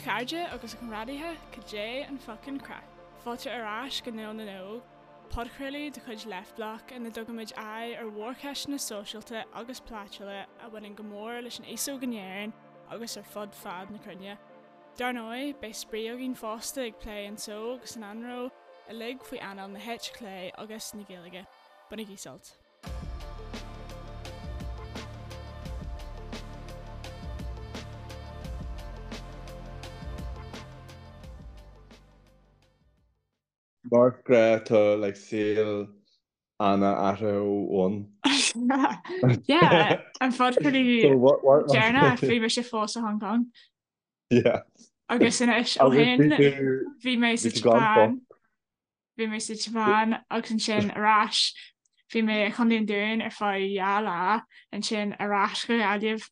chairde agus a chomrádaithe, cad é an fuckin' craic? Fáilte ar ais go Nuall na nÓg, podchraoladh de chuid Leftblock ina dtugaimid aghaidh ar mhórcheisteanna sóisialta agus polaitiúla a bhaineann go mór leis an aos óg in Éirinn agus ar fud fad na cruinne. Dar ndóigh, beidh spraoi againn fosta ag plé an tsó agus an anró, uilig faoi anáil na heite clé agus na Gaeilge. Bainigí sult. Mar ghnáth tá like saol Anna athraithe ó bhonn. Yeah, an podchraoladh deireanach bhí mise fós i Hong Kong. Yeah. Agus anois ó shin bhí mé sa tSeapáin. Bhí mé sa tSeapáin agus ansin ar ais. Bhí mé i Chontae an Dúin ar feadh 2 lá, ansin ar ais go Gaillimh.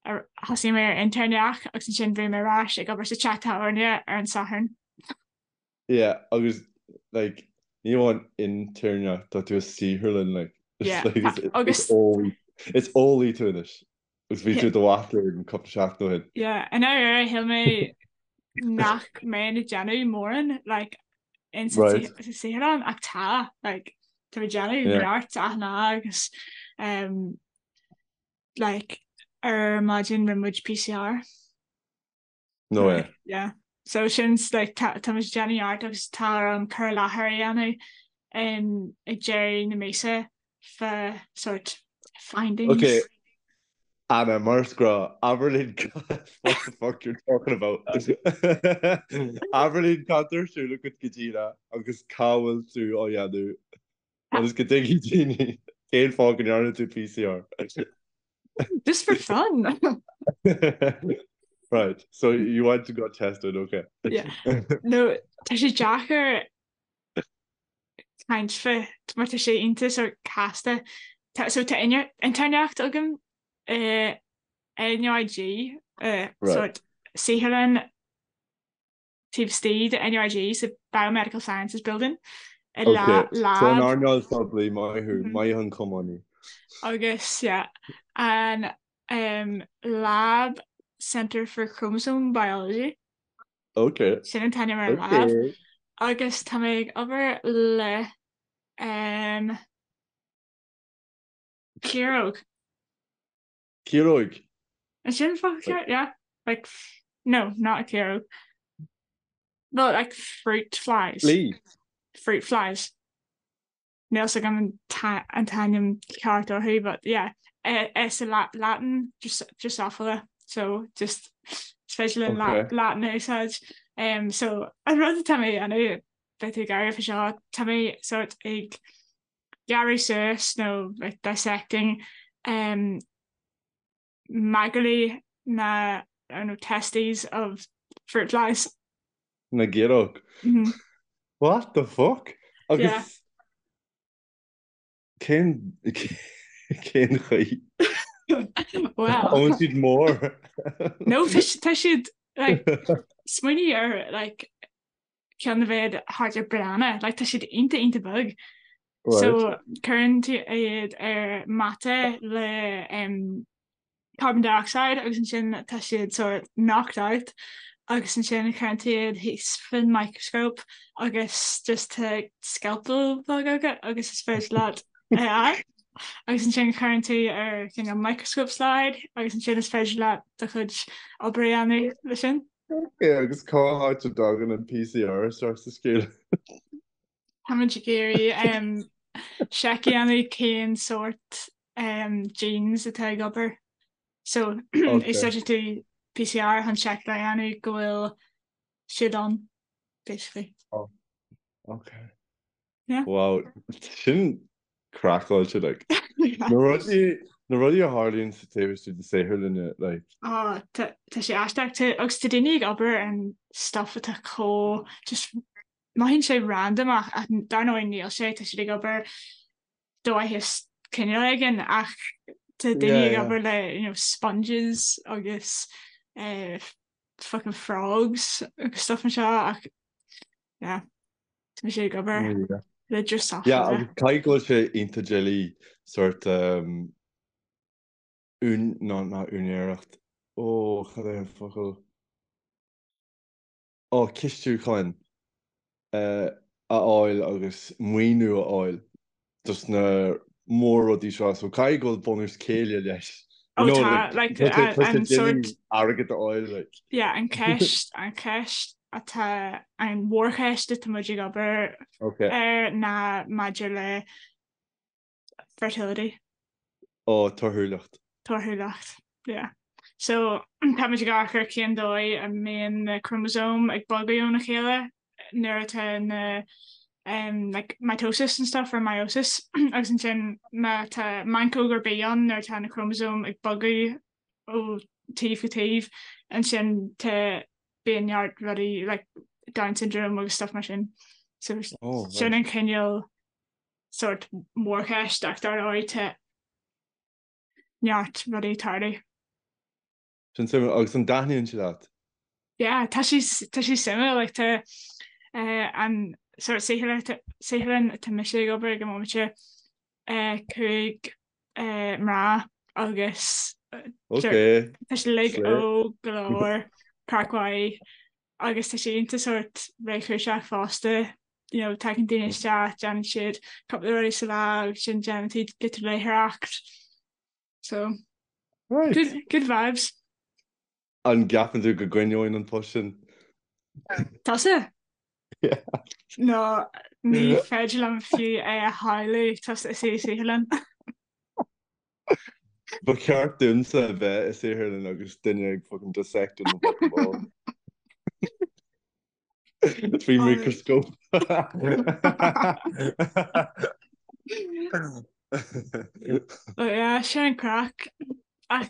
Thosaigh mé ar intéirneacht agus ansin bhí mé ar ais ag obair sa teach tábhairne ar an Satharn. Yeah, agus like ní amháin intéirneacht, tá tú i saotharlann like. Yeah, It's like agus is eolaí is eolaí tú anois. Agus bhí tú i do mhac léinn cúpla seachtain ó shin. Yeah, i ndáiríre shíl mé nach mbeinn ag déanamh mórán like in sa Right. sa saotharlann ach tá like tá mé ag déanamh Yeah. neart achan lá agus um, like ar maidin rinne muid PCR. No way. Yeah. So sin like tá tá muid ag déanamh neart agus tá orm cur i láthair a dhéanamh um, ag deireadh na míosa fá sort findings. Okay, Anna, mar is gnách, abair linn what the fuck you're talking about. Abair linn cad tá ar siúl agat go díreach agus cá bhfuil tú á dhéanamh agus go dtuigfidh daoine cén fáth go ndearna tú PCR. Just for fun. Right, so you went to got tested, okay. Yeah. No, tá sé deacair caint fá mar tá sé iontach sort casta. Tá, so tá intéirneacht agam i NUIG, Right. sort saotharlann taobh istigh de NUIG sa Biomedical Sciences Building i Ok, lab. so an earnáil phoiblí, maith thú, Mhm. maith an cumann. Agus yeah, an um, Lab Centre for Chromosome Biology. Ok. Sin an t-ainm ar an lab. Ok. Agus tá mé ag obair le um, ciaróg. Ciaróg? Is sin focal ceart? Yeah. Like, no, not a ciaróg. Well, like fruit flies. Flea. Fruit flies. Níl 's agam an t-ainm ceart orthu, but yeah. Is i Latin Drosophila, so just is féidir linn Okay. Latin a úsáid. Um, so an rud atá mé a dhéanamh, beidh tú ag gáire fá seo, tá mé sort ag gearradh suas nó like dissecting um, magairlí na I don't know, testes of fruit flies. Na gciaróg. Mm -hmm. What the fuck? Yeah. Agus cén cén chaoi? Well. An bhfuil siad mór? No, tá tá siad like smaoinigh ar like ceann a bheadh thart ar banana, like tá siad iontach iontach beag. Right. So cuireann tú iad ar mata le um, carbon dioxide agus ansin tá siad sort knocked out agus ansin cuireann tú iad thíos faoin microscope agus just tá scalpel beag agat agus is féidir leat é a fháil. Agus ansin cuireann tú ar cineál microscope slide agus ansin is féidir leat do chuid obair a dhéanamh leis sin. Ok, agus cá háit a dtagann an PCR isteach sa scéal? Táimid ag iarraidh seic a dhéanamh cén sórt genes atá ag obair. So úsáideann tú PCR chun seic a dhéanamh go bhfuil siad ann, basically. Oh, ok. Yeah. Wow, sin craiceáilte, like. Na rudaí, na rudaí a tharlaíonn sa taobh istigh de saotharlanna, like. Oh, tá tá sé aisteach. Tá agus tá daoine ag obair ar an stuff atá chomh just mothaíonn sé random ach ach dar ndóigh níl sé, tá siad ag obair do mhaitheas cineál éigin ach tá daoine Yeah, ag yeah. obair le you know, sponges agus eh, fucking frogs agus stuff mar seo ach yeah, tá mise ag obair Yeah. le Yeah, Drosophila. agus caithfidh go bhfuil sé iontach doiligh sort um, ún, ná, ná úinéireacht. Ó, cad é an focal? Ó, cistiúcháin a fháil agus maoiniú a fháil dos na mór-rudaí seo, so caithfidh go bhfuil bunús céille leis. Ó tá, like, an sort. Airgead a fháil, like. Yeah, an ceist, an cheist atá, an mhórcheist atá muid ag obair ar ná maidir le fertility. Ó, torthúlacht. Torthúlacht, yeah. So, táimid ag amharc ar cén dóigh a mbíonn na crómasóim ag bogadh óna chéile nuair atá na um, like, mitosis and stuff or meiosis agus ansin má tá meancóg ar bith ann nuair atá na crómasóim ag bogadh ó taobh go taobh ansin tá bíonn neart rudaí like Down syndrome agus stuff mar sin. So oh, sin an cineál sórt mórcheist ach dar ndóigh tá neart rudaí ag tarlú. Sin suimiúil. Agus an dtaitníonn sé leat? Yeah, tá sé tá sé suimiúil like tá eh, an sórt saotharlann atá mise ag obair ag an mbomaite eh, 5 eh, mná agus Ok. tá siad uilig óg go leor, craic mhaith agus tá sé iontach sórt réchúiseach fosta, you know, tagann daoine isteach, déanann siad cúpla rudaí sa lá agus sin déanann siad giota léitheoireacht. So, Right. good, good vibes. An gceapann tú go gcoinneoinn an post sin? Tusa? Yeah. No, ní féidir liom fiú é a shamhlú tusa i saotharlann. Ba cheart domsa a bheith i saotharlann agus duine ag fucking dissecting mo fucking ball. Faoi microscope. But yeah, sin an craic. Ach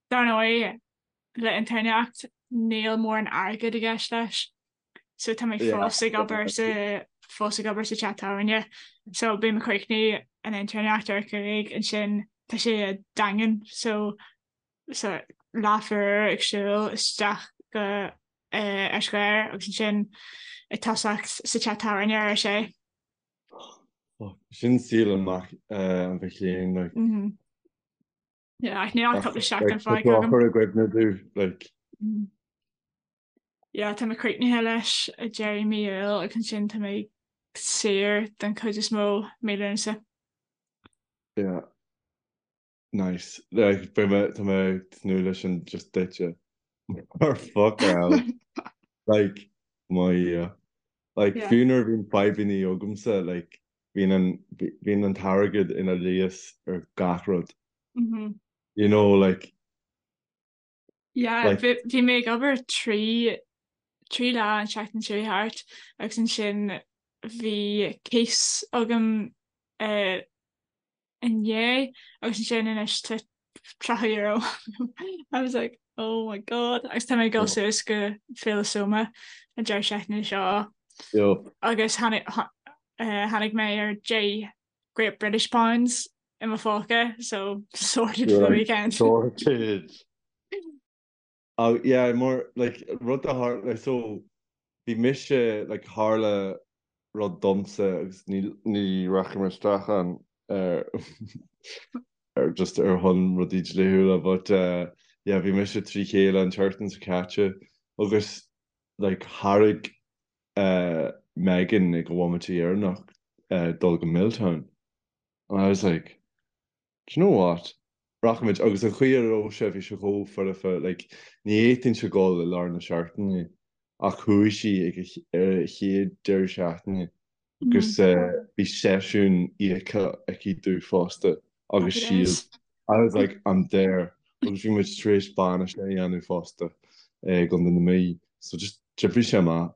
dar ndóigh, le intéirneacht níl mórán airgid i gceist leis. So tá mé fós ag obair sa fós ag obair sa teach tábhairne. So bím ag críochnú an intéirneacht ar a 5 ansin tá sé i Daingean so so leathuair ag siúl isteach go Eis Ghair agus ansin ag tosacht sa teach tábhairne ar a sé. Sin saol an mac an mhic léinn like. Yeah, ach níl ach cúpla seachtain fágtha agam. Cur i gcuimhne domh like. Yeah, tá mé críochnaithe leis ag deireadh mí Iúil agus ansin tá mé saor den chuid is mó mí Lúnasa. Yeah. Nice. Like, beidh mé, tá mé ag tnúth leis sin just duitse. Mar fuck hell. Like, my yeah. Like, Yeah. fiú nuair a bhíonn fadhbanna agamsa, like, bíonn an, bíonn an t-airgead ina leigheas ar gach rud. Mm-hmm. You know, like, Yeah, Like- bhí bhí mé ag obair trí trí lá an seachtain seo thart agus ansin bhí cíos agam eh, inné agus ansin anois tá €30. I was like, oh my god. Agus tá mé ag dul suas go Féile Soma an deireadh seachtaine seo Yup. agus tháinig eh, tháinig mé ar 10 Great British Pounds i mo phóca, so sorted for the weekend. Sorted. Oh, yeah, mar, like, rud a tharla, like, so, bhí mise, like, tharla rud domsa agus ní, ní rachaidh mé isteach ann ar, ar just ar shon rudaí dlíthiúla, but, uh, yeah, bhí mise trí chéile an tseachtain seo caite agus, like, thairg, uh, Megan ag an bhomaite dheireanach, uh, dul go Milltown. And I was like, do you know what? Rachaimid, agus an chaoi a raibh sé, bhí sé chomh foirfe, like, ní fhéadfainnse dul i lár na seachtaine ach chuaigh sí ag ar a chéad deireadh seachtaine agus bhí seisiún íoctha aici domh fosta agus siad, I was like, I'm there agus bhí muid tar éis bainis a dhéanamh fosta i gContae na Mí so just d'oibrigh sé amach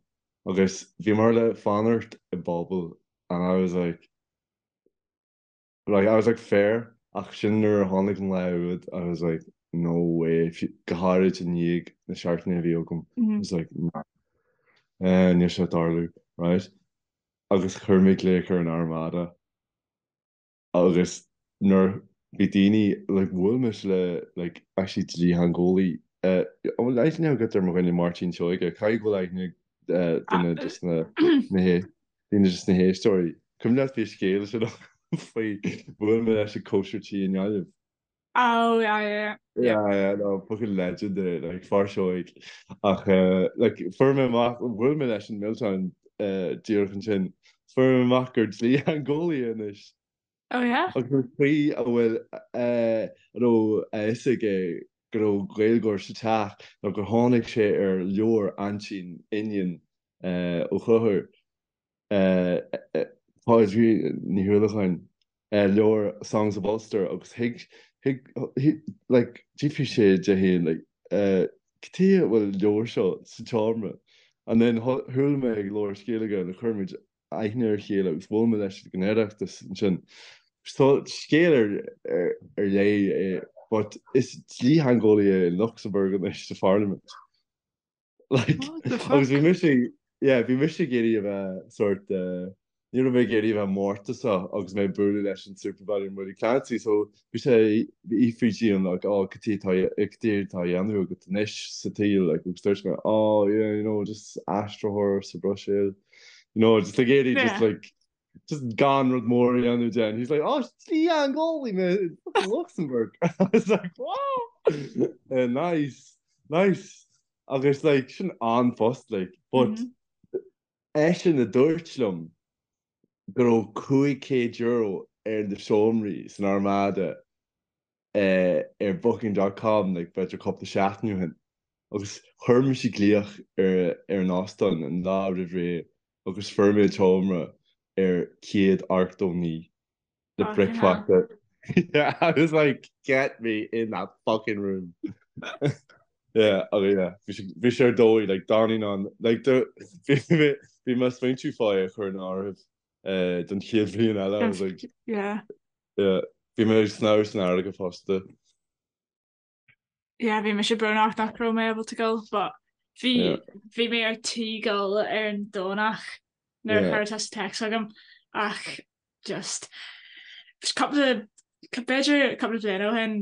agus bhíomar le fanacht i bpuball and I was like, Like, I was like, fair, ach sin nuair a tháinig an lá úd, I was like, no way, go háirid i ndiaidh na seachtaine a bhí agam, I was like, nah, eh, níl sé ag tarlú, right? Agus chuir mé glaoch ar an Armada agus nuair bhí daoine, like, bhuail mise le, like, actually dlítheangeolaí, eh, an bhfuil aithne agat ar mo dhuine Máirtín Seoige? Caithfidh go bhfuil aithne ag eh, duine de na, na hé. Duine de na héisteoirí. Cuimhin leat bhí scéal sin faoi bhuail mé leis ag cóisir tí i nGaillimh. Oh yeah yeah yeah. Yeah yeah no fucking legend é like fear seoigh ach eh, like fuair mé amach bhuail mé leis in Milltown eh, díreach ansin fuair mé amach gur dlítheangeolaí é anois. Oh yeah? Agus an chaoi a bhfuil eh, a raibh a fhios aige go raibh Gaeilgeoir sa teach ná gur tháinig sé ar leabhar aintín Iníon eh, Ó Conchúir Pádraig Ní Uallacháin, leabhar Songs of Ulster agus thuig, thuig, like, d'fhiafraigh sé de féin, like, cad chuige a bhfuil an leabhar seo sa tseomra? And then chuala mé ag labhairt Gaeilge and chuir muid aithne ar a chéile agus bhuail mé leis ag an Oireachtas ansin. So scéal ar, ar, ar leith é, but is dlítheangeolaí é in Luxembourg anois sa Pharlaimint. Like, agus bhí mise, yeah, bhí mise ag iarraidh a bheith sort, eh, ní raibh mé ag iarraidh a bheith mórtasach agus mé ag bualadh leis an Supervalu and Willie Clancy, so bhí sé ag fiafraí díom, like, oh, cad é atá, cad é atá á dhéanamh agat anois sa tsaol, like, agus dúirt mé, oh, yeah, you know, just aistritheoir sa Bhruiséil, you know, just ag iarraidh just like, just gan rud mór a dhéanamh de. And he's like, oh, dlítheangeolaí mé in fucking Luxembourg. I was like, wow, uh, nice, nice. Agus like, sin an-phost, like, but mm -hmm. eisean a dúirt liom go raibh €500 ar na seomraí san Armada ar booking dot com like b'fhéidir cúpla seachtain ó shin agus chuir mise glaoch ar ar an óstán an lá roimh ré agus fuair mé seomra ar 189 le bricfeasta. Yeah, I was like, get me in that fucking room. Yeah, oh yeah, bhí sé ar dóigh, like, d'fhanfainn ann, like, bhí mé bhí mé ag smaointiú fá é a chur in áirithe eh, don chéad bhliain eile, I was like, Yeah. Yeah, bhí mé ag snámh san fharraige fosta. Yeah, bhí mise brónach nach raibh mé ábalta dul, but bhí Yeah. bhí mé ar tí dul ar an Domhnach nuair a Yeah. chuir tusa text chugam ach just cúpla b'fhéidir cúpla bliain ó shin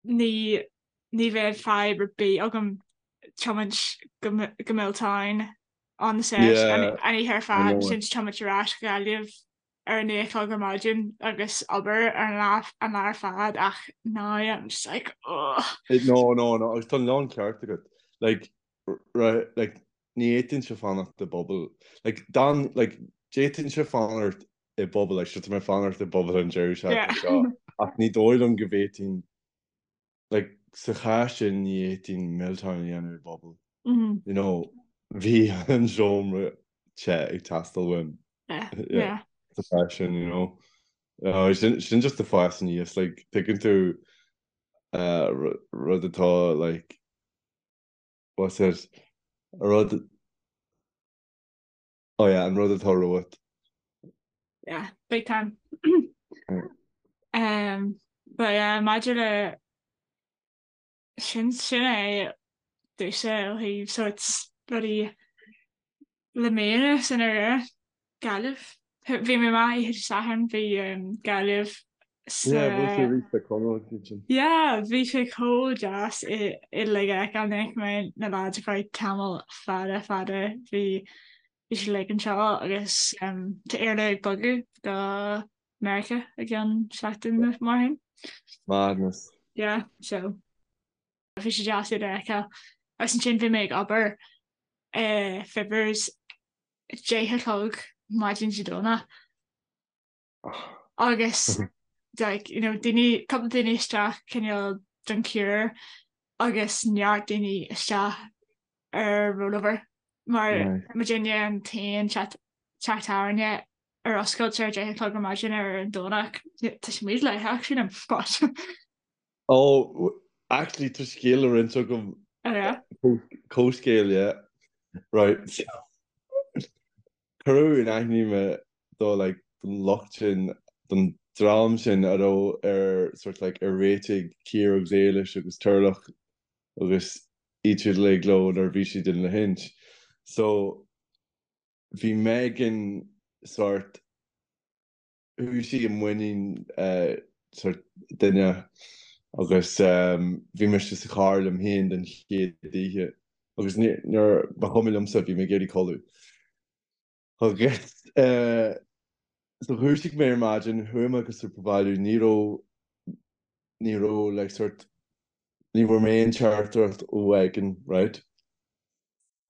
ní ní bheadh fadhb ar bith agam tiomáint go go Milltown on the sesh Yeah, an oíche ar I fad know. ansin tiomáint ar ais go Gaillimh ar a 9 a chlog ar maidin agus obair ar an lá an lá ar fad ach now I'm just like ugh. No, no, no, agus tá an lán ceart agat. Like, right, like, ní fhéadfainnse fanacht i bpuball. Like, dan, like, d'fhéadfainnse fanacht i bpuball, like, tá mé ag fanacht i bpuball an deireadh seachtaine seo, ach ní dóigh liom go bhféadfainn, like, sa chás sin ní fhéadfainn Milltown a dhéanamh i bpuball. You know, bhí an seomra te ag teastáil uaim. Yeah, yeah. Sa chás sin, you know. Uh, sin, sin just ag fás aníos, like, tuigeann tú uh, rud atá, like, what's it, rud Oh yeah, an rud atá romhat. Yeah, big time. Um, but yeah, maidir le sin sin é domhsa ó thaobh sort rudaí le mí anuas in ar Gaillimh. Bhí mé amach oíche Dé Sathairn, bhí um, Gaillimh sa Yeah, bhuail tú arís le Conall ansin. Yeah, bhí sé chomh deas uilig a fheiceáil. Ní fhaca mé na lads ar feadh tamall fada fada. Bhí bhí siad uilig anseo agus um, tá Iarla ag bogadh go Meiriceá i gceann seachtain nó mar sin. Madness. Yeah, so bhí sé deas iad a fheiceáil. Agus ansin bhí mé ag obair i Fibbers 10 a chlog maidin Dé Domhnaigh. Agus like, you know, daoine, cúpla daoine isteach cineál don cure agus neart daoine isteach ar rollover mar muidinne an t-aon teach tábhairne ar oscailt ar 10 a chlog ar maidin ar an Domhnach. Tá sé mídhleathach sílim, but. Oh, actually tá scéal le roinnt agam. Oh yeah? Comhscéal, yeah. Right. Cuireadh in aithne mé do like don lucht sin, don dream sin a raibh ar sort like ar réitigh Ciara agus Éilis agus Turlough agus iad siúd uilig leo nuair a bhí siad in Lahinch. So bhí Megan sort chuaigh sí i muinín sort duine agus bhí mise sa charr liom féin den chéad oíche agus nuair ba chuma liomsa, bhí mé ag iarraidh codladh. Agus so dhúisigh mé ar maidin, chuaigh mé go Supervalu, ní raibh. Ní raibh like sort ní bhfuair mé aon teachtaireacht ó Mhegan, right?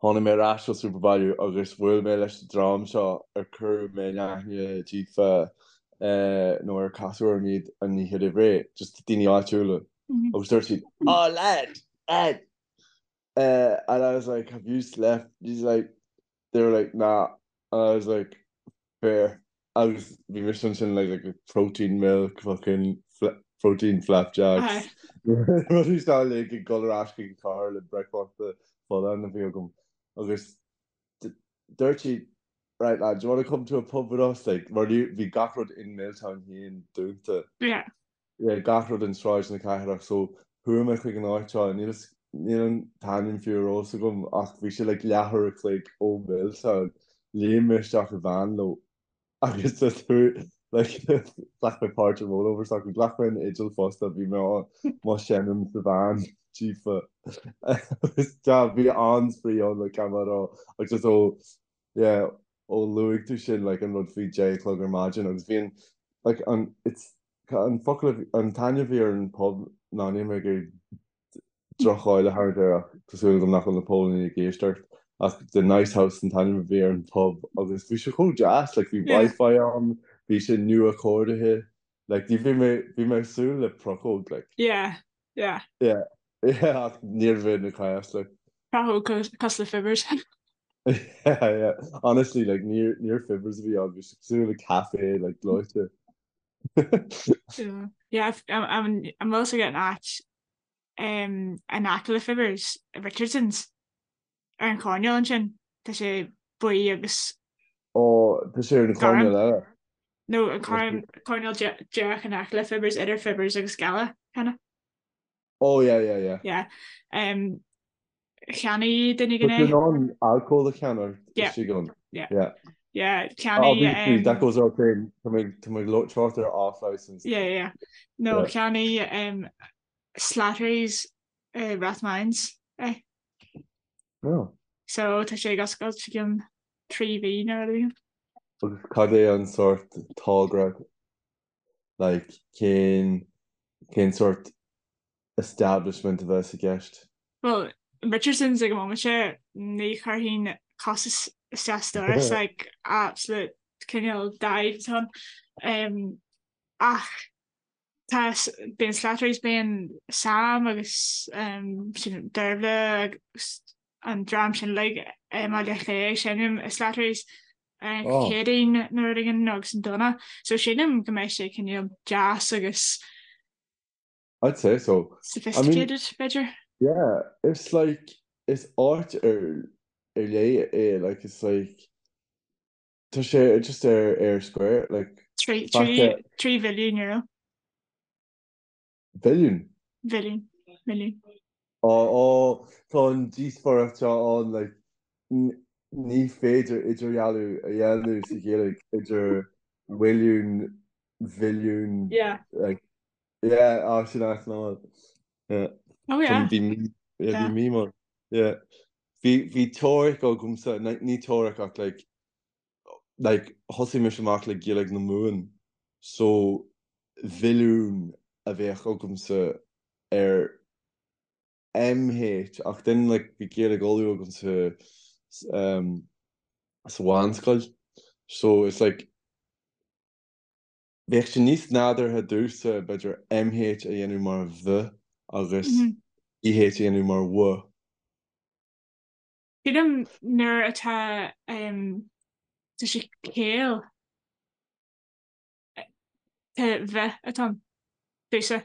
Tháinig mé ar ais ó Supervalu agus bhuail mé leis an dream seo ar cuireadh mé in aithne díofa nó ar casadh orm iad an oíche roimh ré, just daoine áitiúla. Agus dúirt siad, Oh lad, lad! And I was like, have you slept? He's like, they were like, nah. And I was like, fair. Agus bhí mise ansin like, like protein milk, fucking protein flapjacks. Rudaí seo uilig ag dul ar ais chuig an charr le bricfeasta folláin a bhí agam. Agus dúirt siad, right lad, do you want to come to a pub with us? Like, mar bhí gach rud in Milltown féin dúnta. Yeah. Yeah, gach rud in Sráid na Cathrach so chuaigh mé chuig an áit seo, níl níl an t-ainm fiú ar eolas agam ach bhí sé like leathuair a chloig ó Milltown. Léim mé isteach i veain leo agus just chuaigh like ghlac mé páirt i rollover s'acu, ghlac mé an fhidil fosta, bhí mé á mo seinm sa veain daofa agus yeah bhí an-spraoi ann like gan mé a rá agus just ó yeah ó luaigh tú sin like an rud faoi deich a chlog ar maidin agus bhí an like an it's an focal a bhí an t-ainm a bhí ar an pub ná níl mé ag iarraidh droch-cháil a tharraingt air ach tá súil agam nach bhfuil na póilíní ag éisteacht ach The Nice House an t-ainm a bhí ar an pub agus bhí sé chomh deas like bhí Wi-Fi ann bhí sé nua-chóirithe like ní bhí mé bhí mé ag súil le prochóg like. Yeah yeah. Yeah yeah ach níorbh in an cás like. Prochóg cosúil le Fibbers. Yeah yeah honestly like níor níor Fibbers a bhí ann bhí sé cosúil le café like gleoite. Yeah yeah an bhfuil fhios agat an áit in aice le Fibbers, Richardson's ar an choirnéal ansin tá sé buí agus Ó tá sé ar an choirnéal eile. No an coirnéal díreach in aice le Fibbers idir Fibbers agus Scala kinda. Oh yeah yeah yeah. Yeah. Um, cheannaigh duine éigin é. Tá tú in ann alcól a cheannach istigh ann. Yeah. Yeah. Yeah, cheannaigh. Obviously, that goes without saying, tá mé tá mé ag trácht ar off license. Yeah, yeah. No, cheannaigh um, Slattery's uh, Rathmines é. Oh. So tá sé ag oscailt i gceann 3 mhí nó rud éigin. Agus cad é an sórt togra like cén cén sórt establishment a bheas i gceist? Well, Richardson's ag an móimint seo, ní chuirfinn cos isteach sa doras, like absolute cineál dive atá ann. Um, ach tá bíonn Slattery's, bíonn Sam agus um, sin Dervla agus an dream sin uilig i mBaile Átha Cliath ag seinm i Slattery's ar an Oh. Chéadaoin nó rud éigin agus an Domhnach. So sílim go mbeidh sé cineál deas agus I'd say so. I mean, sophisticated, b'fhéidir. yeah, it's like, is áit ar ar leith é, like, it's like, tá sé just ar Eyre Square, like, 3 faca 3 bhilliún euro. Billiún? Bhilliún. Milliún. Ó, ó, tá an díospóireacht seo ann, like, ní féidir idirdhealú a dhéanamh sa Ghaeilge idir mhilliún, bhilliún, Yeah. like, yeah, á, sin ait ná. Yeah. Oh yeah. Bhí mí, yeah, bhí mí mar, yeah. Bhí, bhí teoiric agamsa, ní teoiric ach like, like, thosaigh mise amach le Gaeilge na Mumhan, so mhilliún a bheadh agamsa ar MH ach then like bhí Gaeilge Uladh agamsa um, sa mheánscoil so it's like bheadh sé níos nádúrtha domhsa b'fhéidir MH a dhéanamh mar V agus EH a dhéanamh mar W. Sílim nuair atá um, tá sé caol tá V atá ann domhsa.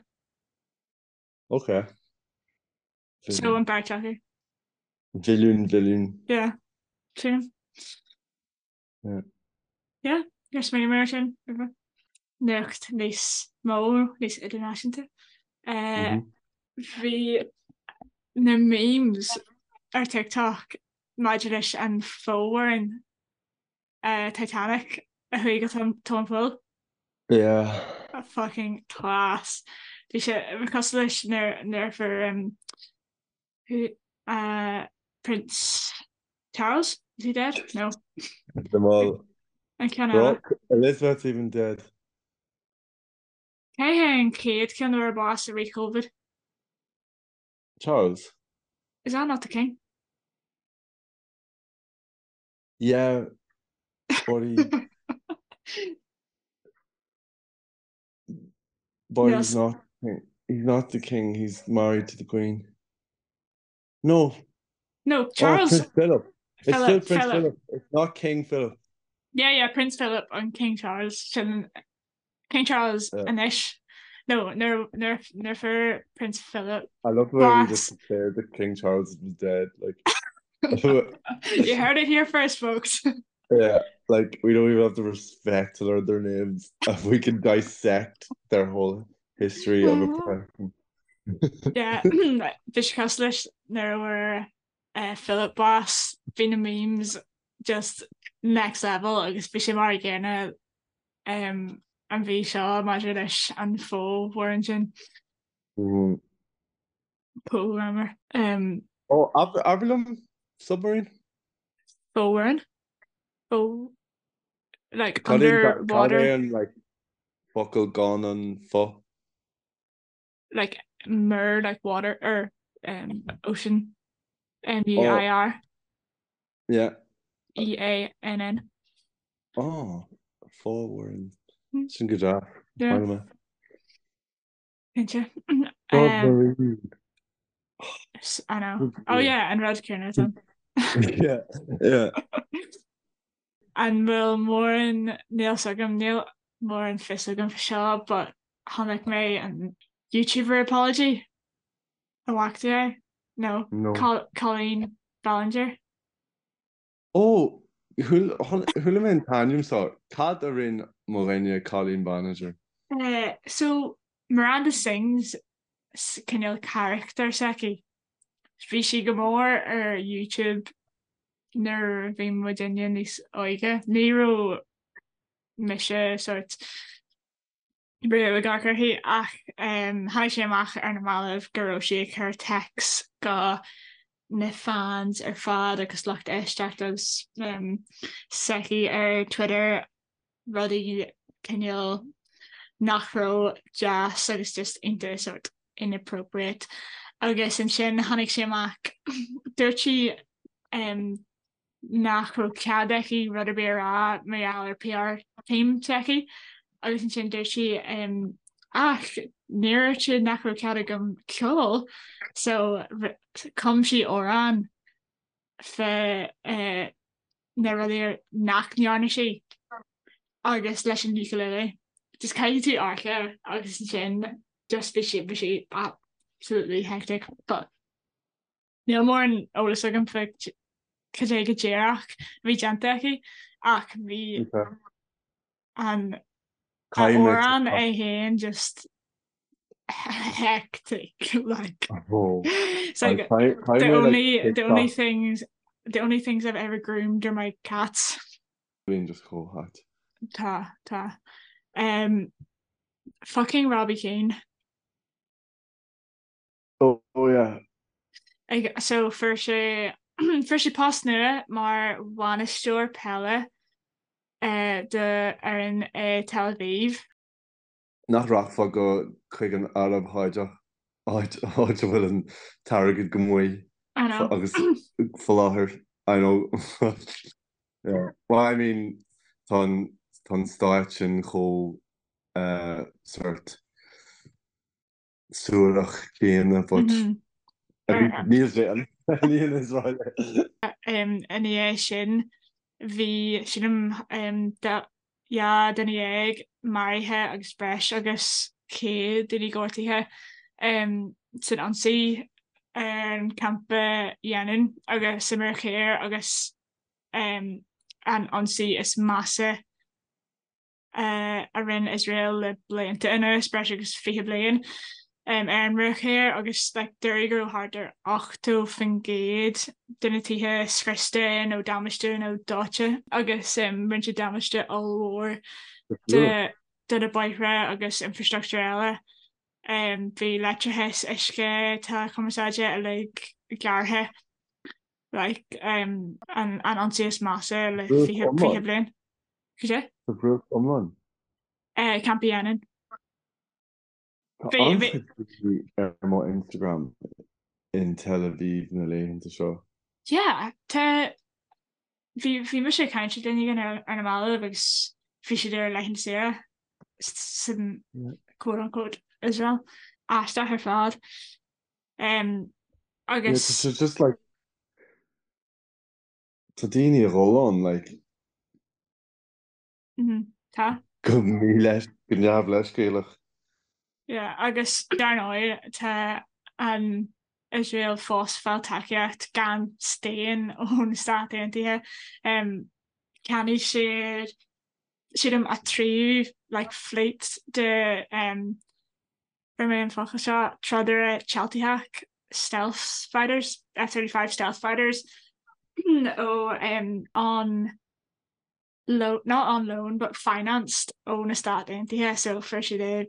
Ok. So an beirt acu. Bhilliún, bhilliún. Yeah. Sílim. Yeah. Yeah, níor smaoinigh mé ar sin roimhe. Nuacht níos mó, níos idirnáisiúnta. Eh, Bhí na memes ar TikTok maidir leis an fomhuireán eh, Titanic a chuaigh go tóin tóin poill. Yeah. Fucking class. Bhí sé cosúil leis nuair nuair a fuair um, who uh, Prince Charles? Is he dead? No. Them all. An ceann eile. Elizabeth's even dead. Cé hé an chéad cheann a fuair bás i rith Covid? Charles. Is that not the king? Yeah, but he But he's not he's not the king, he's married to the queen. No. No, oh, Charles. Oh, Prince Philip. It's Philip, still Prince Philip. Philip. It's not King Philip. Yeah, yeah, Prince Philip and King Charles. Sin King Charles yeah. anois. No, nuair nuair fuair Prince Philip. I love the way we just declared that King Charles was dead. Like You heard it here first, folks. Yeah, like we don't even have the respect to learn their names. If we can dissect their whole history of a person. Yeah, bhí sé cosúil leis nuair a fuair eh, Philip bás, bhí na memes just next level agus bhí sé mar an gcéanna um, an mhí seo maidir leis an fho-mhuireann sin. Mm. Fomhuireann. Um, oh, abair liom submarine? Fomhuireann? Fo... Like, underwater? Cad é an like, focal gan an fo? Like, mur, like water, or um, ocean. M-U-I-R. Oh. Yeah. E-A-N-N. Oh, fomhuireann. Hmm. Sin go deas. Yeah. Cinnte. Submarine. I know. Oh yeah, an rud céanna san. Yeah, yeah. An bhfuil mórán níl 's agam, níl mórán fios agam faoi seo, but chonaic mé an YouTuber apology. An bhfaca tú é? No. No. Colleen Ballinger. Ó, chuala mé an t-ainm seo. Cad a rinne mo dhuine Colleen Ballinger? So, Miranda Sings cineál carachtar s'aici. Bhí sí go mór ar YouTube nuair a bhí muidinne níos óige. Ní raibh mise sort riamh ag amharc uirthi ach tháinig sé amach ar na mallaibh go raibh sí ag cur texts go na fans ar fad agus lucht éisteachta s'aici ar Twitter rudaí cineál nach raibh deas agus just iontach sort inappropriate agus ansin tháinig sé amach dúirt sí nach raibh cead aici rud ar bith a rá mar gheall ar PR team s'aici agus ansin dúirt sí ach níor dhúirt siad nach raibh cead agam ceol so chum sí amhrán fá eh, na rudaí nach ndearna sí agus leis an ukulele. Just caithfidh tú amharc air agus ansin just bhí sí bhí sí absolutely hectic but Níl mórán eolas agam faoi cad é go díreach a bhí déanta aici ach bhí an amhrán é féin just hectic like it's like the only the only things the only things I've ever groomed are my cats. Bíonn just chomh hait. Tá tá. Um, fucking Robbie Keane. Oh yeah. Ag, so fuair sé fuair sé post nua mar bhainisteoir peile eh, do fhoireann i Tel Aviv. Nach rachfá go chuig an Araib Sháideach, áit áit a bhfuil an t-airgead go maith I know. agus faoi láthair, I know. Yeah. Well, I mean, tá an tá an stáit sin chomh eh, sort suarach céanna but níl sé an níl Israel. Ina dhiaidh sin bhí sílim 12 duine maraithe agus breis agus 100 duine gortaithe san ionsaí ar an campa Jenin agus sa Mhuir Thoir agus an ionsaí is measa a rinne Iosrael le blianta anuas, breis agus 20 bliain, ar an Bhruach Thoir agus like dúradh go raibh thart ar 80% de na tithe scriosta nó damáiste nó dóite agus rinne siad damáiste ollmhór do do na bóithre agus infrastructúr eile. Bhí leictreachas, uisce, teileachumarsáide uilig gearrtha like an an ionsaí is measa le 20 20 bliain. Cad é? Sa bhruach iomlán? Campa Jenin. Tá an-chuid daoine ar mo Instagram in Tel Aviv na laethanta seo. Yeah, tá, bhí, bhí mise ag caint le duine éigin ar, ar na mallaibh agus bhí siad ar laethanta saoire san quote unquote Israel. Aisteach ar fad. Um, agus. Yeah, tá sé just like, tá daoine ag dhul ann, like. Tá. Go míleis, go neamhleithscéalach. Yeah, agus dar ndóigh tá an Iosrael fós ag fáil tacaíocht gan staon ó na Stáit Aontaithe. Um, cheannaigh siad sílim a tríú like, fleet de um, fuair mé an focal seo, trodaire téaltaitheach stealth fighters, F-35 stealth fighters ó um, an loan, not on loan, but financed ó na Stáit Aontaithe so fuair siad é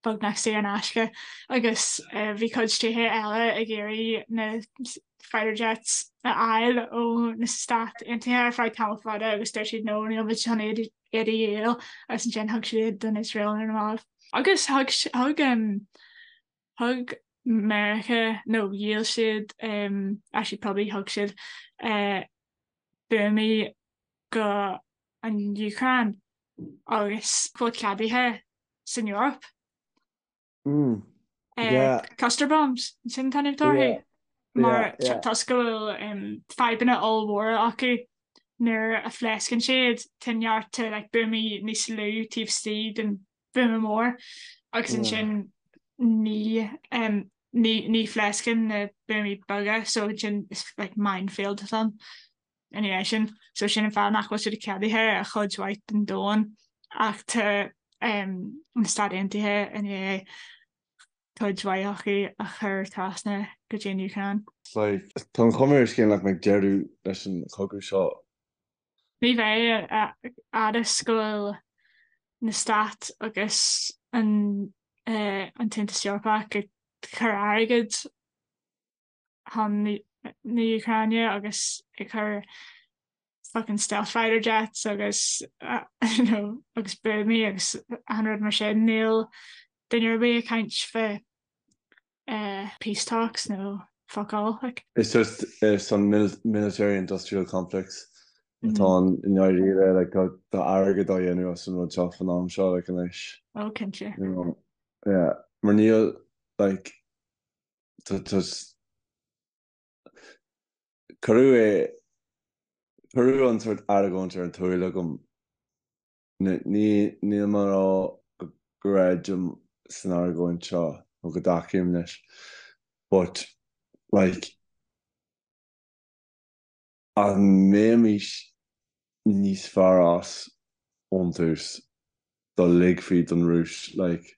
beagnach saor in aisce agus bhí cuid tíortha eile ag iarraidh na fighter jets a fháil ó na Stáit Aontaithe ar feadh tamall fada agus dúirt siad no níl muid chun iad a dhíol agus ansin thug siad iad don Iosrael ar na mallaibh. Agus thug thug um, thug Meiriceá nó dhíol siad um, actually probably thug siad uh, buamaí go an Úcráin agus go bhfuil ceadaithe san Eoraip. Mm. Yeah. Cluster bombs, sin an t-ainm atá orthu. Mar toisc go bhfuil um, fadhbanna ollmhóra acu nuair a phléascann siad tá neart like, buamaí níos lú taobh istigh den bhuama mór agus ansin ní um, ní ní phléascann na buamaí beaga so ansin is like minefield atá ann. ina dhiaidh sin. So sin an fáth nach bhfuil siad ceadaithe ar chuid mhaith den domhan ach tá na Stáit Aontaithe i ndiaidh cuid mhaith acu a chur trasna go dtí an Úcráin. Like, tá an chuma ar an scéal nach mbeidh deireadh leis an chogadh seo. Ní bheidh, a fhad is go bhfuil na Stáit agus an an tAontas Eorpach ag cur airgid chun na Úcráine agus ag cur fucking stealth fighter jets agus you know agus buamaí agus achan rud mar sin. Níl duine ar bith ag caint fá peace talks nó fuck all like. It's just it's an military industrial complex atá ann i ndáiríre like tá tá airgead á dhéanamh as an rud seo fan am seo like anois. Oh cinnte. You know yeah mar níl like Cuireadh é, cuireadh an sórt argóint ar an tsúil agam. Ní, níl mé ag rá go gcreidim san argóint seo nó go dtacaím leis but like an mbeimis níos fearr as ón tús dá ligfí don Rúis like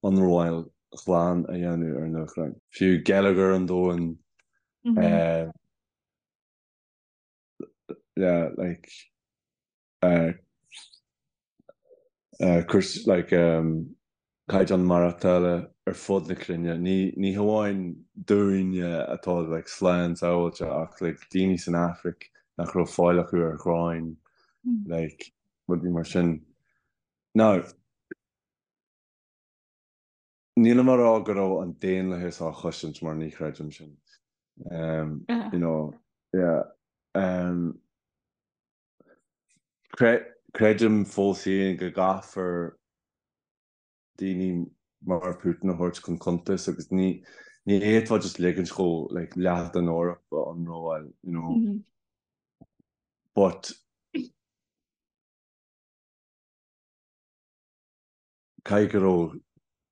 ionramháil ghlan a dhéanamh ar an Úcráin? Fiú geilleagar an domhain, yeah like cúrsaí like caighdeán maireachtála ar fud na cruinne, ní ní hamháin dúinne atá like slán sábháilte ach like daoine san Afraic nach raibh fáil acu ar ghráin like rudaí mar sin. Now, nílim ag rá go raibh an daonlathas á chosaint mar ní chreidim sin. Um, you know, yeah. Um, Creidim fós féin go gcaithfear daoine mar Putin a thabhairt chun cuntais agus ní ní fhéadfá just ligint dhó like leath den Eoraip a ionramháil, you know. But caithfidh go raibh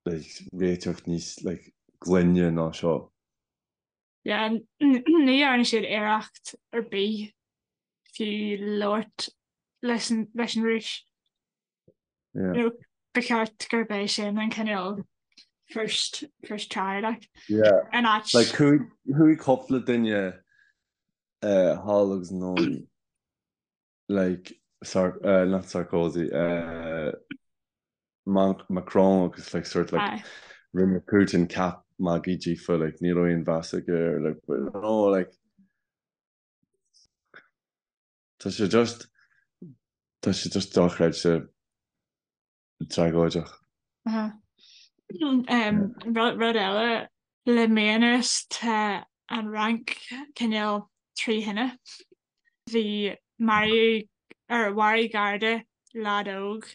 like réiteach níos like glaine ná seo. Yeah, ní dhearna siad iarracht ar bith fiú labhairt leis an leis an Rúis. Yeah. You know, ba cheart gurb é sin an cineál first first try like. Yeah. An áit. Like chuaigh chuaigh cúpla duine uh, thall agus anonn like Sar uh, not Sarkozy uh, Macron agus like sort like Aye. rinne Putin ceap magaidh díofa like ní raibh aon mheas aige air like but no like tá sé just tá sé just dochreidte tragóideach. Uh-huh. Rud eile le mí anuas tá an Fhrainc cineál trí thine. Bhí maraíodh or mharaigh Garda leaid óg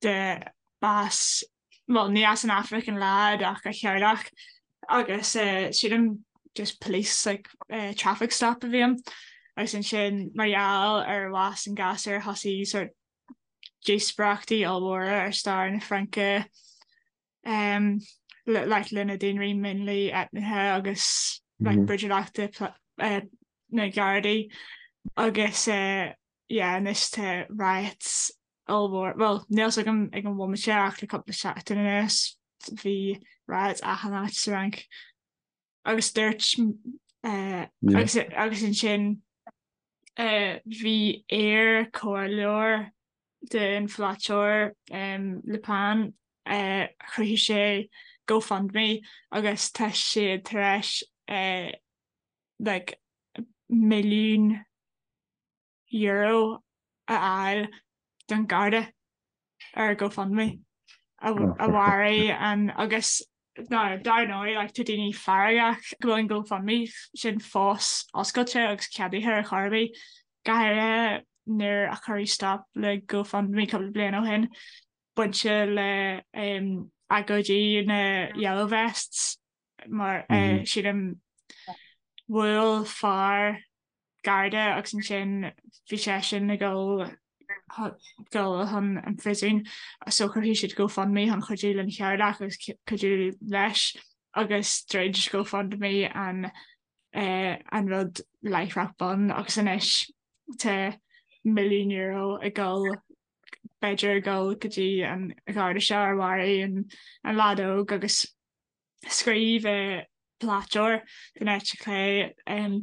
de b'as bhuel ní as an Afraic an leaid ach a theaghlach agus sílim just police like traffic stop a bhí ann agus ansin mar gheall ar bhás an ghasúir thosaigh sort díospóireachtaí ollmhóra ar stair na Fraince like le na daonraí mionlaigh eitneacha agus like brúidiúlachta na Gardaí agus yeah anois tá riots ollmhór, bhuel níl 's agam ag an bhomaite ach le cúpla seachtain anuas bhí riots achan áit sa Fhrainc agus dúirt agus agus ansin bhí iar-chomhairleoir den pholaiteoir Le Pen chruthaigh sé GoFundMe agus tá siad tar éis like €1,000,000 a fháil don Gharda ar GoFundMe a mharaigh an agus now dar ndóigh like tá daoine feargach go bhfuil an GoFundMe sin fós oscailte agus ceadaithe ar chor ar bith, go háirithe nuair a cuireadh stop le GoFundMe cúpla bliain ó shin bainte le agóidí na Yellow Vests mar sílim bhuail fear Garda agus ansin bhí seisean ag dul dul chun an phríosúin so chruthaigh siad GoFundMe chun cuidiú lena theaghlach agus cuidiú leis agus dhruid GoFundMe an an rud láithreach bonn agus anois tá €1,000,000 ag dul b'fhéidir ag dul go dtí an Gharda seo ar mharaigh an an leaid óg agus Scríobh polaiteoir den eite chlé,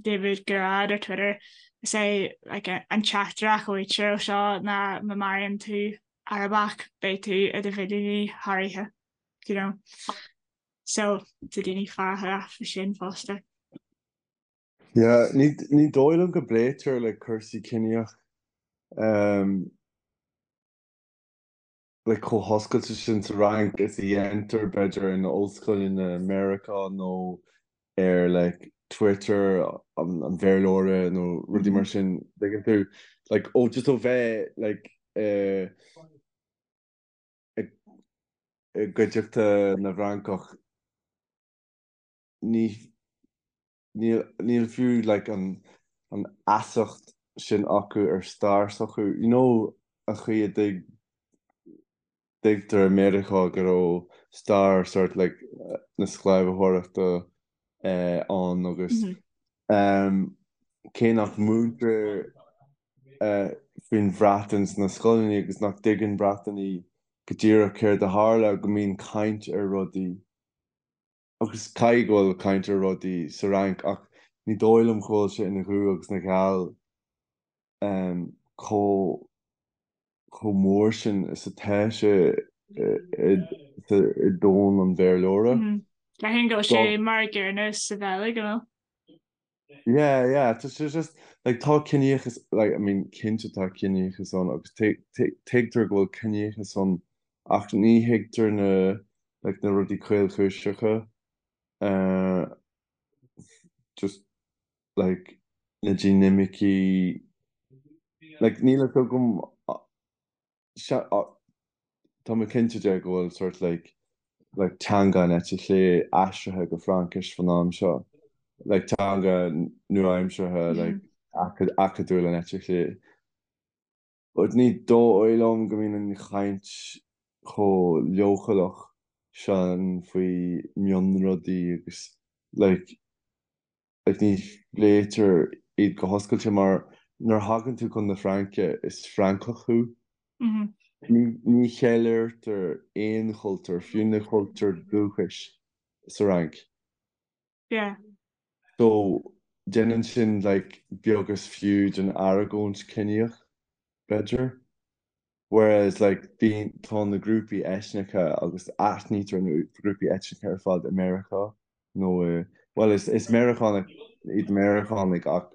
David Guirado ar Twitter, Is é an teachtaireacht a fhaightear ó seo ná má mharaíonn tú Arabach beidh tú i do mhilliúnaí thar oíche, you know. So tá daoine feargach faoi sin fosta. Yeah, ní dóigh liom go bpléitear like cúrsaí ciníoch. Like chomh hoscailte sin sa Fhrainc is a dhéantar b'fhéidir in ollscoileanna Meiriceá nó ar like Twitter an Bhéarlóra nó rudaí mar sin, tuigeann tú? Like ó just ó bheith like i gcuideachta na bhFrancach ní níl níl fiú like an an fheasacht sin acu ar stair s'acu. You know an chaoi a dtuig dtuigtear i Meiriceá go raibh stair sort like na sclábhaíochta eh ann agus em cé nach múintear eh faoin Bhreatain sna scoileanna agus nach dtuigeann Breatanaigh go díreach céard a tharla go mbíonn caint ar rudaí Agus caithfidh go bhfuil caint ar rudaí sa Fhrainc ach ní dóigh liom go bhfuil sé ina dhubh agus ina gheal chomh chomh mór sin is atá sé i domhan an Bhéarlóra. Déarfainn go bhfuil sé mar an gcéanna sa Bheilg, an bhfuil? Yeah, yeah, tá sé just, like, tá ciníochas, like, I mean, cinnte tá ciníochas ann agus tuigtear go bhfuil ciníochas ann ach ní thuigtear na, like, na rudaí caolchúiseacha, eh, just, like, na dinimicí, like, níl a fhios agam, Tá mé cinnte de go bhfuil sort like like teanga an eite chlé aistrithe go Fraincis fan am seo, like teanga nua-aimseartha like acadúil an eite chlé. But ní dóigh liom go mbíonn an chaint chomh leochaileach sin faoi mionrudaí agus like like ní phléitear iad go hoscailte mar nuair a thagann tú chun na Fraince is Francach thú. Ní ní cheiliúrtar aon chultúr, fiú na cultúir dúchais sa Fhrainc. Yeah. So déanann sin like beag is fiú den argóint ciníoch, b'fhéidir. Whereas like bíonn, tá na grúpaí eitneacha agus aithnítear na grúpaí eitneacha ar fad i Meiriceá nó i, bhuel is, is Meiriceánaigh iad Meiriceánaigh ach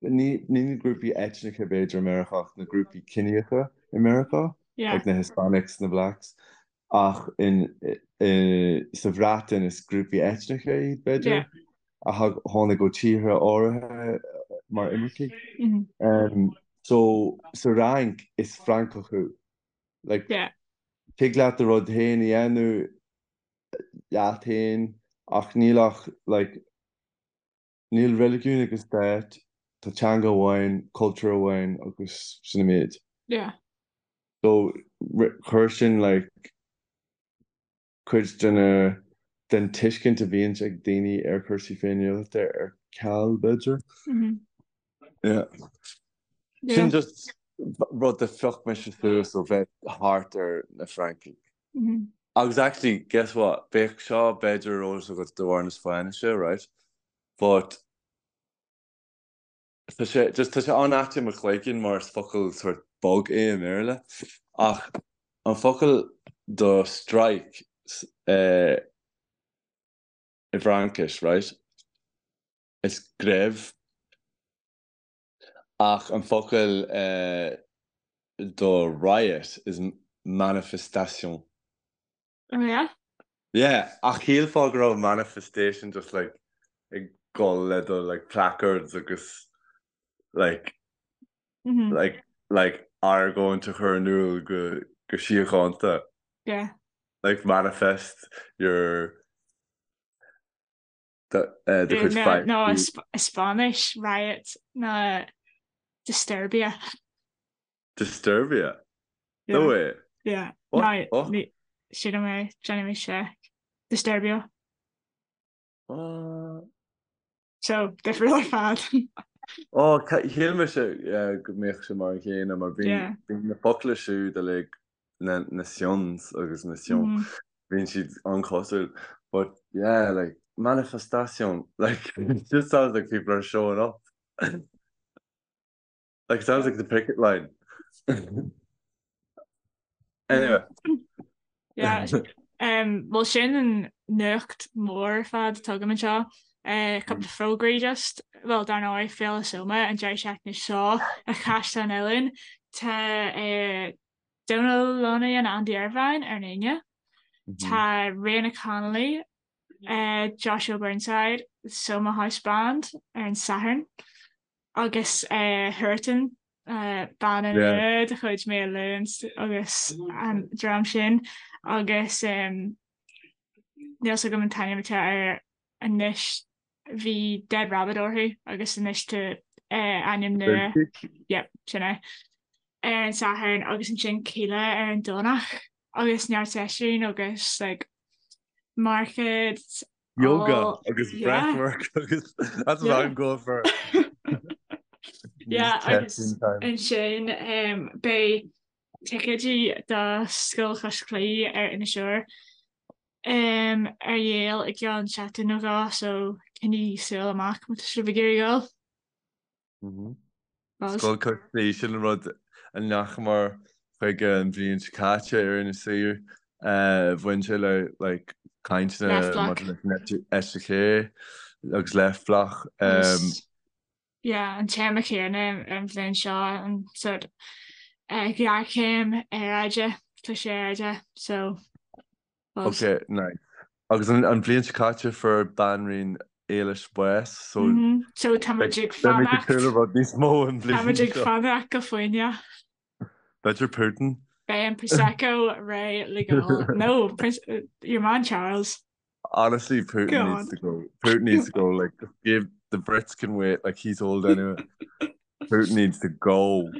ní, ní na grúpaí eitneacha b'fhéidir i Meiriceá ach na grúpaí ciníocha i Meiriceá. Yeah. Like na Hispanics, na Blacks. Ach in, i, sa Bhreatain is grúpaí eitneacha iad, b'fhéidir, Yeah. a thag, tháinig ó tíortha áirithe mar imircigh. Mm-hmm. Um, so, sa Fhrainc is Francach thú. Like, Yeah. tig leat do rud féin a dhéanamh leat féin ach níl ach, like, Níl reiligiún ag an stát, tá teanga amháin, cultúr amháin agus sin an méid. Yeah. So chuir sin like cuid de na, den tuiscint a bhíonns ag daoine ar chúrsaí féiniúlachta ar ceal b'fhéidir. Yeah. Sin just rud a phioc mise suas ó bheith thart ar na Francaigh. Agus actually, guess what? Bheadh seo b'fhéidir ar eolas agat de bharr na Spáinnise, right? But tá sé, just tá sé an-ait i mo chloigeann mar is focal sort bog é i mBéarla. Ach an focal do strike eh, i bhFraincis, right? Is grève. Ach an focal eh, do riot is manifestation. Oh yeah? Yeah, ach shílfeá go raibh manifestation just like ag dul le do like placards agus like Mm-hmm. like like argóint a chur in iúl go go síochánta. Yeah. Like manifest your do chuid feidhm. No, i Spáinnis, riot ná disturbia. Disturbia? No way. Yeah. What? No, sílim é, déanfaidh mé seic. Disturbio. Uh... So, difriúil ar fad. Ó, shíl mise go mbeadh sé mar an chéanna, mar bíonn na focla siúd uilig, na na tions agus na tion, bíonn siad an-chosúil. But yeah, like, manifestation, like, it just sounds like people are showing up. Like, it sounds like the picket line. Anyway. Yeah. Um, well sin an nuacht mór ar fad atá agam anseo. Uh, cúpla fógraí just, well dar ndóigh Féile Soma an deireadh seachtaine seo i Caisleán Uidhilín. Tá uh, Donal Lunny and Andy Irvine ar an Aoine. Tá Ríona Connolly, uh, Joshua Burnside, Soma House Band ar an Satharn. Agus uh, Huartan, uh, banna nua de chuid Mael Lúin agus an dream sin agus um, níl 's agam an t-ainm atá air anois bhí Dead Rabbit orthu agus anois tá uh, ainm nua yep, sin é ar an Satharn agus ansin Kíla ar an Domhnach agus neart seisiún agus like, market Yoga agus breathwork agus that's what I'm going for. Yeah, agus ansin um, beidh ticéidí do Scoil Chois Claí ar Inis Oírr um, ar dhíol i gceann seachtain nó dhó so coinnigh súil amach má tá sibh ag iarraidh dul. Scoil Chois Claí, sin an rud a ndeachamar chuige an bhliain seo caite ar Inis Oírr. Bhain sé le like cainteanna maidir leis an eite chlé agus Left Bloc. Yeah, an téama céanna an bhliain seo an sort ghéarchéim aeráide, cliseadh aeráide, so Ok, nice. Agus an bhliain seo caite fuair Banríon Éilis bás, so So tá muid ag beimid ag súil le rud níos mó an bhliain seo. Tá muid ag fanacht go foighneach. B'fhéidir Putin. Beidh an Prosecco réidh le go. No, Prince, your man Charles. Honestly, Putin go needs to go. Putin needs to go. Like, give the Brits can wait. Like, he's old anyway. Putin needs to go.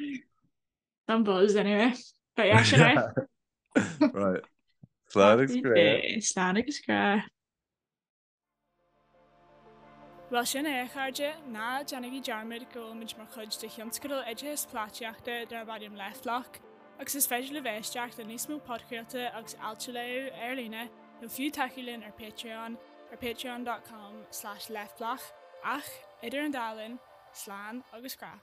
Some buzz anyway. But yeah, sin é. Right. Slán agus grá. Slán agus grá. Bhuel sin é a chairde, ná déanaigí dearmad go bhfuilimid mar chuid de thionscadal oideachais polaitíochta darb ainm Left Bloc agus is féidir libh éisteacht le níos mó podchraolta agus ailt a léamh ar líne nó fiú tacú linn ar Patreon ar patreon.com slash leftbloc ach idir an dá linn, slán agus grá.